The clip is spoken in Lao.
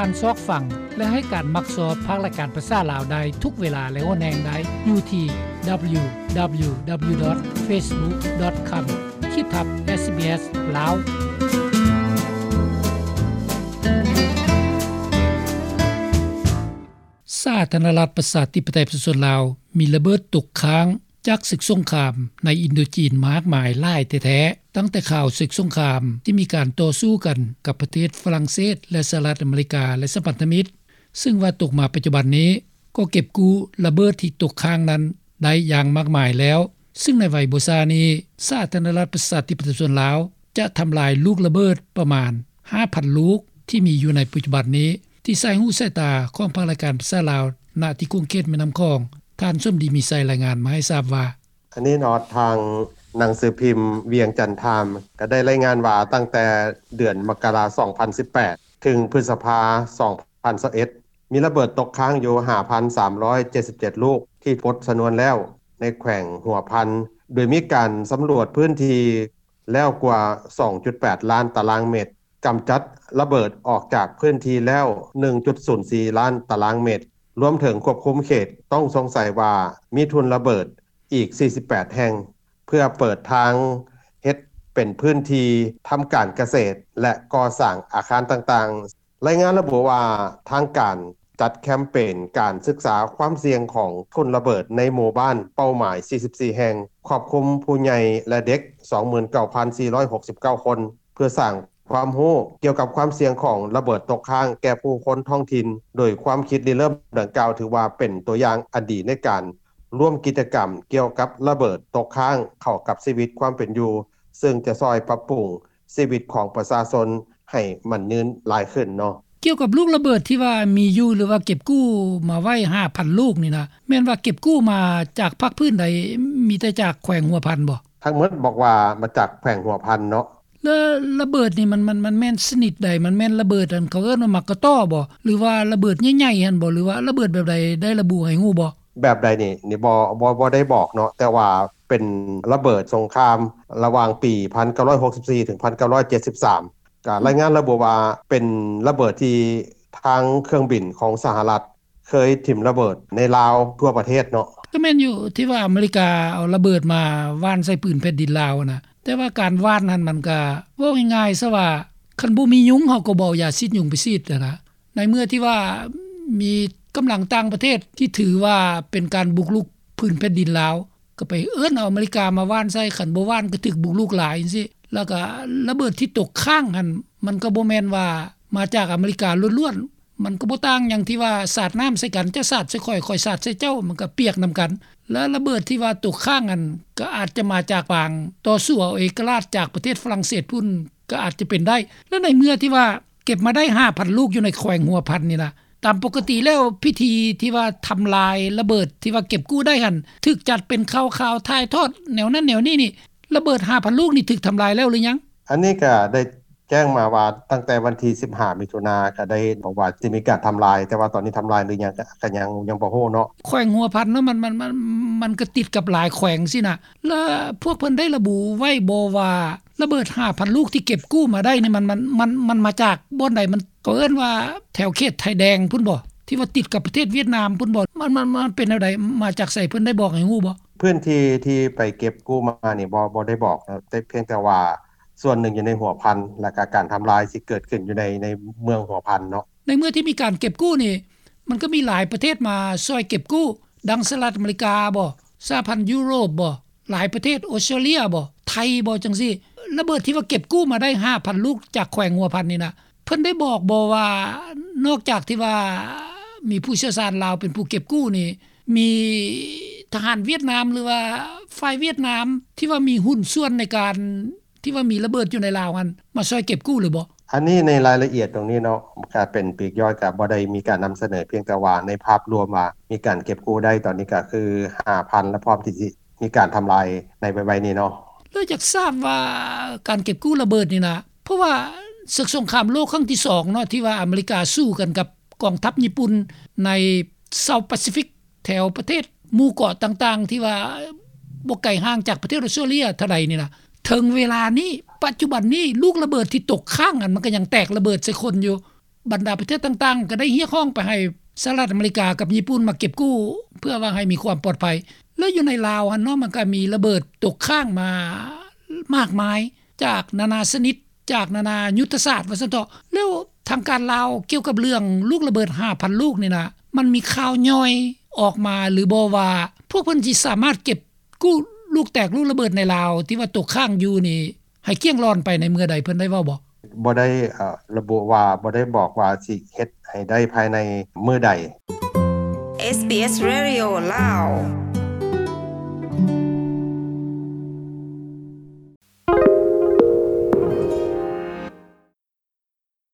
ານຊອກຟັງ ແລະ ໃຫ້ການມັກຊອບພາກລາຍການພາສາລາວໄດ້ທຸກເວລາ ແລະ ຫົວແຮງໄດ້ຢູ່ທີ່ www.facebook.com ຂີດທັບ SBS ລາວ. ສາທາລະນະລັດ ປະຊາທິປະໄຕ ປະຊາຊົນລາວ ມີລະເບີດຕົກຄ້າງຈາກເສິກສົງຄາມໃນອິນໂດຈີນມາກມາຍຫຼາຍແທ້ໆ. ຕັ້ງແຕ່ຂ່າວເສິກສົງຄາມທີ່ມີການຕໍ່ສູ້ກັນກັບປະເທດຝຣັ່ງເສດ ແລະ ສະຫະລັດອາເມລິກາ ແລະ ສະພັນທະມິດ, ເຊິ່ງວ່າຕົກມາປັດຈຸບັນນີ້ ກໍເກັບກູ້ລະເບີດທີ່ຕົກຄ້າງນັ້ນໄດ້ຢ່າງມາກມາຍແລ້ວ, ເຊິ່ງໃນໄວບໍ່ຊ້ານີ້ ສາທາລະນະລັດ ປະຊາທິປະໄຕ ປະຊາຊົນລາວ ຈະທຳລາຍລູກລະເບີດປະມານຫ້າພັນລູກ ທີ່ມີຢູ່ໃນປັດຈຸບັນນີ້ ທີ່ສາຍຫູສາຍຕາຂອງພາກລາຍການພາສາລາວ ນະທີ່ຂົງເຂດແມ່ນ້ຳຂອງ, ທ່ານ ສົມດີ ມີໄຊ ລາຍງານມາໃຫ້ຊາບວ່າ: ອັນນີ້ເນາະ ທາງໜັງສືພິມວຽງຈັນທາມ ກໍໄດ້ລາຍງານວ່າ ຕັ້ງແຕ່ເດືອນມະກະລາ ສອງພັນສິບແປດ ເຖິງພຶດສະພາ ສອງພັນຊາວເອັດ ມີລະເບີດຕົກຄ້າງຢູ່ ຫ້າພັນສາມຮ້ອຍເຈັດສິບເຈັດລູກ ທີ່ປົດຊະນວນແລ້ວໃນແຂວງຫົວພັນ, ໂດຍມີການສຳຫຼວດພື້ນທີ່ແລ້ວກວ່າ ສອງຈຸດແປດລ້ານຕາລາງເມັດ, ກຳຈັດລະເບີດອອກຈາກພື້ນທີ່ແລ້ວ ໜຶ່ງຈຸດສູນສີ່ລ້ານຕາລາງເມັດ, ລວມເຖິງຄວບຄຸມເຂດຕ້ອງສົງໄສວ່າມີທຸ່ນລະເບີດອີກ ສີ່ສິບແປດແຫ່ງ ເພື່ອເປີດທາງເຮັດເປັນພື້ນທີ່ທຳການກະເສດ ແລະ ກໍ່ສ້າງອາຄານຕ່າງໆ. ລາຍງານລະບຸວ່າ ທາງການຈັດແຄມເປນການສຶກສາຄວາມສ່ຽງຂອງທຸ່ນລະເບີດໃນໝູ່ບ້ານເປົ້າໝາຍ ສີ່ສິບສີ່ແຫ່ງ, ຄອບຄຸມຜູ້ໃຫຍ່ ແລະ ເດັກ ສອງໝື່ນເກົ້າພັນສີ່ຮ້ອຍຫົກສິບເກົ້າຄົນ ເພື່ອສ້າງຄວາມຮູ້ກ່ຽວກັບຄວາມສ່ຽງຂອງລະເບີດຕົກຄ້າງແກ່ຜູ້ຄົນທ້ອງຖິ່ນ, ໂດຍຄວາມຄິດລິເລີ່ມດັ່ງກ່າວ ຖືວ່າເປັນຕົວຢ່າງອັນດີໃນການລວມກິດຈະກຳກ່ຽວກັບລະເບີດຕົກຄ້າງເຂົ້າກັບຊີວິດຄວາມເປັນຢູ່, ເຊິ່ງຈະຊ່ອຍປັບປຸງຊີວິດຂອງປະຊາຊົນໃຫ້ໝັ້ນຍືນຫຼາຍຂຶ້ນເນາະ. ກ່ຽວກັບລູກລະເບີດທີ່ວ່າມີຢູ່ ຫຼືວ່າເກັບກູ້ມາໄວ້ຫ້າພັນລູກນີ້ນະ ແມ່ນວ່າເກັບກູ້ມາຈາກພາກພື້ນໃດ? ມີແຕ່ຈາກແຂວງຫົວພັນບໍ່? ທັງໝົດບອກວ່າມາຈາກແຂວງຫົວພັນເນາະ. ແລ້ວລະເບີດນີ້ມັນ ມັນ ມັນແມ່ນຊະນິດໃດ? ມັນແມ່ນລະເບີດອັນເຂົາເອີ້ນວ່າໝາກກະຕໍບໍ? ຫຼືວ່າລະເບີດໃຫຍ່ໆຫັ້ນບໍ? ຫຼືວ່າລະເບີດແບບໃດ? ໄດ້ລະບຸໃຫ້ຮູ້ບໍ່? ແບບໃດນີ້ ນີ້ບໍ່ ບໍ່ ບໍ່ໄດ້ບອກເນາະ, ແຕ່ວ່າເປັນລະເບີດສົງຄາມລະຫວ່າງປີພັນເກົ້າຮ້ອຍຫົກສິບສີ່ ເຖິງພັນເກົ້າຮ້ອຍເຈັດສິບສາມ. ກະລາຍງານລະບຸວ່າເປັນລະເບີດທີ່ທາງເຄື່ອງບິນຂອງສະຫະລັດ ເຄີຍຖິ້ມລະເບີດໃນລາວທົ່ວປະເທດເນາະ. ກໍແມ່ນຢູ່ທີ່ວ່າອາເມລິກາເອົາລະເບີດມາຫວ່ານໃສ່ພື້ນແຜ່ນດິນລາວນະ, ແຕ່ວ່າການຫວ່ານຫັ້ນມັນກະ ເວົ້າງ່າຍໆຊະວ່າ ຄັນບໍ່ມີຍຸງເຮົາກໍບໍ່ເອົາຢາສີດຍຸງໄປສີດຫັ້ນນະ. ໃນເມື່ອທີ່ວ່າມີກຳລັງຕ່າງປະເທດທີ່ຖືວ່າເປັນການບຸກລຸກພື້ນແຜ່ນດິນລາວ ກໍໄປເອີ້ນເອົາອາເມລິກາມາຫວ່ານໃສ່, ຄັນບໍ່ຫວ່ານກໍຖືກບຸກລຸກຫຼາຍຈັ່ງຊີ້. ແລ້ວກໍລະເບີດທີ່ຕົກຄ້າງຫັ້ນ ມັນກໍບໍ່ແມ່ນວ່າມາຈາກອາເມລິກາລ້ວນໆ, ມັນກໍບໍ່ຕ່າງຫຍັງທີ່ວ່າສາດນ້ຳໃສ່ກັນ, ເຈົ້າສາດໃສ່ຂ້ອຍ, ຂ້ອຍສາດໃສ່ເຈົ້າ, ມັນກໍປຽກນຳກັນ. ແລະລະເບີດທີ່ວ່າຕົກຄ້າງຫັ້ນ ກໍອາດຈະມາຈາກການຕໍ່ສູ້ເອົາເອກະລາດຈາກປະເທດຝຣັ່ງເສດພຸ້ນ ກໍອາດຈະເປັນໄດ້. ແລະໃນເມື່ອທີ່ວ່າເກັບມາໄດ້ຫ້າພັນລູກຢູ່ໃນແຂວງຫົວພັນນີ້ນະ, ຕາມປົກກະຕິແລ້ວ ພິທີທີ່ວ່າທຳລາຍລະເບີດທີ່ວ່າເກັບກູ້ໄດ້ຫັ້ນ ຖືກຈັດເປັນຂ່າວໆ ຖ່າຍທອດແນວນັ້ນແນວນີ້ນີ້, ລະເບີດຫ້າພັນລູກນີ້ຖືກທຳລາຍແລ້ວຫຼືຍັງ? ອັນນີ້ກໍໄດ້ແຈ້ງມາວ່າ ຕັ້ງແຕ່ວັນທີສິບຫ້າ ມິຖຸນາ ກໍໄດ້ບອກວ່າຈະມີການທຳລາຍ, ແຕ່ວ່າຕອນນີ້ທຳລາຍຫຼືຍັງ ກໍ ກໍຍັງ ຍັງບໍ່ຮູ້ເນາະ. ແຂວງຫົວພັນເນາະ ມັນ ມັນ ມັນ ມັນກໍຕິດກັບຫຼາຍແຂວງຊີ້ນະ, ແລ້ວພວກເພິ່ນໄດ້ລະບຸໄວ້ບໍ່ວ່າ ລະເບີດຫ້າພັນລູກທີ່ເກັບກູ້ມາໄດ້ນີ້ ມັນ ມັນ ມັນ ມັນມາຈາກບ່ອນໃດ? ມັນ ເຂົາເອີ້ນວ່າແຖວເຂດໄທແດງພຸ້ນບໍ? ທີ່ວ່າຕິດກັບປະເທດຫວຽດນາມພຸ້ນບໍ? ມັນ ມັນ ມັນເປັນແນວໃດ? ມາຈາກໃສ? ເພິ່ນໄດ້ບອກໃຫ້ຮູ້ບໍ? ພື້ນທີ່ທີ່ໄປເກັບກູ້ມານີ້ ບໍ່ ບໍ່ໄດ້ບອກເນາະ, ແຕ່ພຽງແຕ່ວ່າສ່ວນໜຶ່ງຢູ່ໃນຫົວພັນ ແລ້ວກະການທຳລາຍຊິເກີດຂຶ້ນຢູ່ໃນ ໃນເມືອງຫົວພັນເນາະ. ໃນເມື່ອທີ່ມີການເກັບກູ້ນີ້ ມັນກໍມີຫຼາຍປະເທດມາຊ່ອຍເກັບກູ້, ດັ່ງສະຫະລັດອາເມລິກາບໍ? ສະຫະພັນຢູໂຣບບໍ? ຫຼາຍປະເທດ, ອົດສະຕຣາເລຍບໍ? ໄທບໍ? ຈັ່ງຊີ້. ລະເບີດທີ່ວ່າເກັບກູ້ມາໄດ້ຫ້າພັນລູກຈາກແຂວງຫົວພັນນີ້ນະ, ເພິ່ນໄດ້ບອກບໍ່ວ່າ ນອກຈາກທີ່ວ່າມີຜູ້ຊ່ຽວຊານລາວເປັນຜູ້ເກັບກູ້ນີ້, ມີທະຫານຫວຽດນາມ ຫຼືວ່າຝ່າຍຫວຽດນາມທີ່ວ່າມີຫຸ້ນສ່ວນໃນການ ທີ່ວ່າມີລະເບີດຢູ່ໃນລາວຫັ້ນ ມາຊ່ອຍເກັບກູ້ຫຼືບໍ່? ອັນນີ້ໃນລາຍລະອຽດຕົງນີ້ເນາະ, ການເປັນປີກຍ່ອຍກໍບໍ່ໄດ້ມີການນຳສະເໜີ, ພຽງແຕ່ວ່າໃນພາບລວມວ່າມີການເກັບກູ້ໄດ້ຕອນນີ້ກໍຄືຫ້າພັນ ແລະ ພ້ອມທີ່ຊິມີການທຳລາຍໃນໄວໆນີ້ເນາະ. ແລ້ວຢາກຊາບວ່າການເກັບກູ້ລະເບີດນີ້ນະ, ເພາະວ່າເສິກສົງຄາມໂລກຄັ້ງທີສອງເນາະ ທີ່ວ່າອາເມລິກາສູ້ກັນກັບກອງທັບຍີ່ປຸ່ນໃນ South Pacific ແຖວປະເທດໝູ່ເກາະຕ່າງໆ ທີ່ວ່າບໍ່ໄກຫ່າງຈາກປະເທດອົດສະຕຣາເລຍເທົ່າໃດນີ້ນະ, ເຖິງເວລານີ້ ປັດຈຸບັນນີ້ ລູກລະເບີດທີ່ຕົກຄ້າງຫັ້ນ ມັນກໍຍັງແຕກລະເບີດໃສ່ຄົນຢູ່. ບັນດາປະເທດຕ່າງໆ ກໍໄດ້ຮຽກຮ້ອງໄປໃຫ້ສະຫະລັດອາເມລິກາກັບຍີ່ປຸ່ນມາເກັບກູ້ ເພື່ອວ່າໃຫ້ມີຄວາມປອດໄພ. ແລ້ວຢູ່ໃນລາວຫັ້ນເນາະ ມັນກໍມີລະເບີດຕົກຄ້າງມາມາກມາຍ ຈາກນານາຊະນິດ ຈາກນານາຍຸດທະສາດວ່າຊັ້ນເຖາະ. ແລ້ວທາງການລາວກ່ຽວກັບເລື່ອງລູກລະເບີດຫ້າພັນລູກນີ້ນະ ມັນມີຂ່າວຍ່ອຍອອກມາຫຼືບໍ່ວ່າ ພວກເພິ່ນຊິສາມາດເກັບກູ້ລູກແຕກລູກລະເບີດໃນລາວ ທີ່ວ່າຕົກຄ້າງຢູ່ນີ້ ໃຫ້ກ້ຽງລ້ອນໄປໃນເມື່ອໃດ ເພິ່ນໄດ້ເວົ້າບໍ່? ບໍ່ໄດ້ ເອີ ລະບຸວ່າ ບໍ່ໄດ້ບອກວ່າຊິເຮັດໃຫ້ໄດ້ພາຍໃນມື້ໃດ. ເອສບີເອສ Radio ລາວ.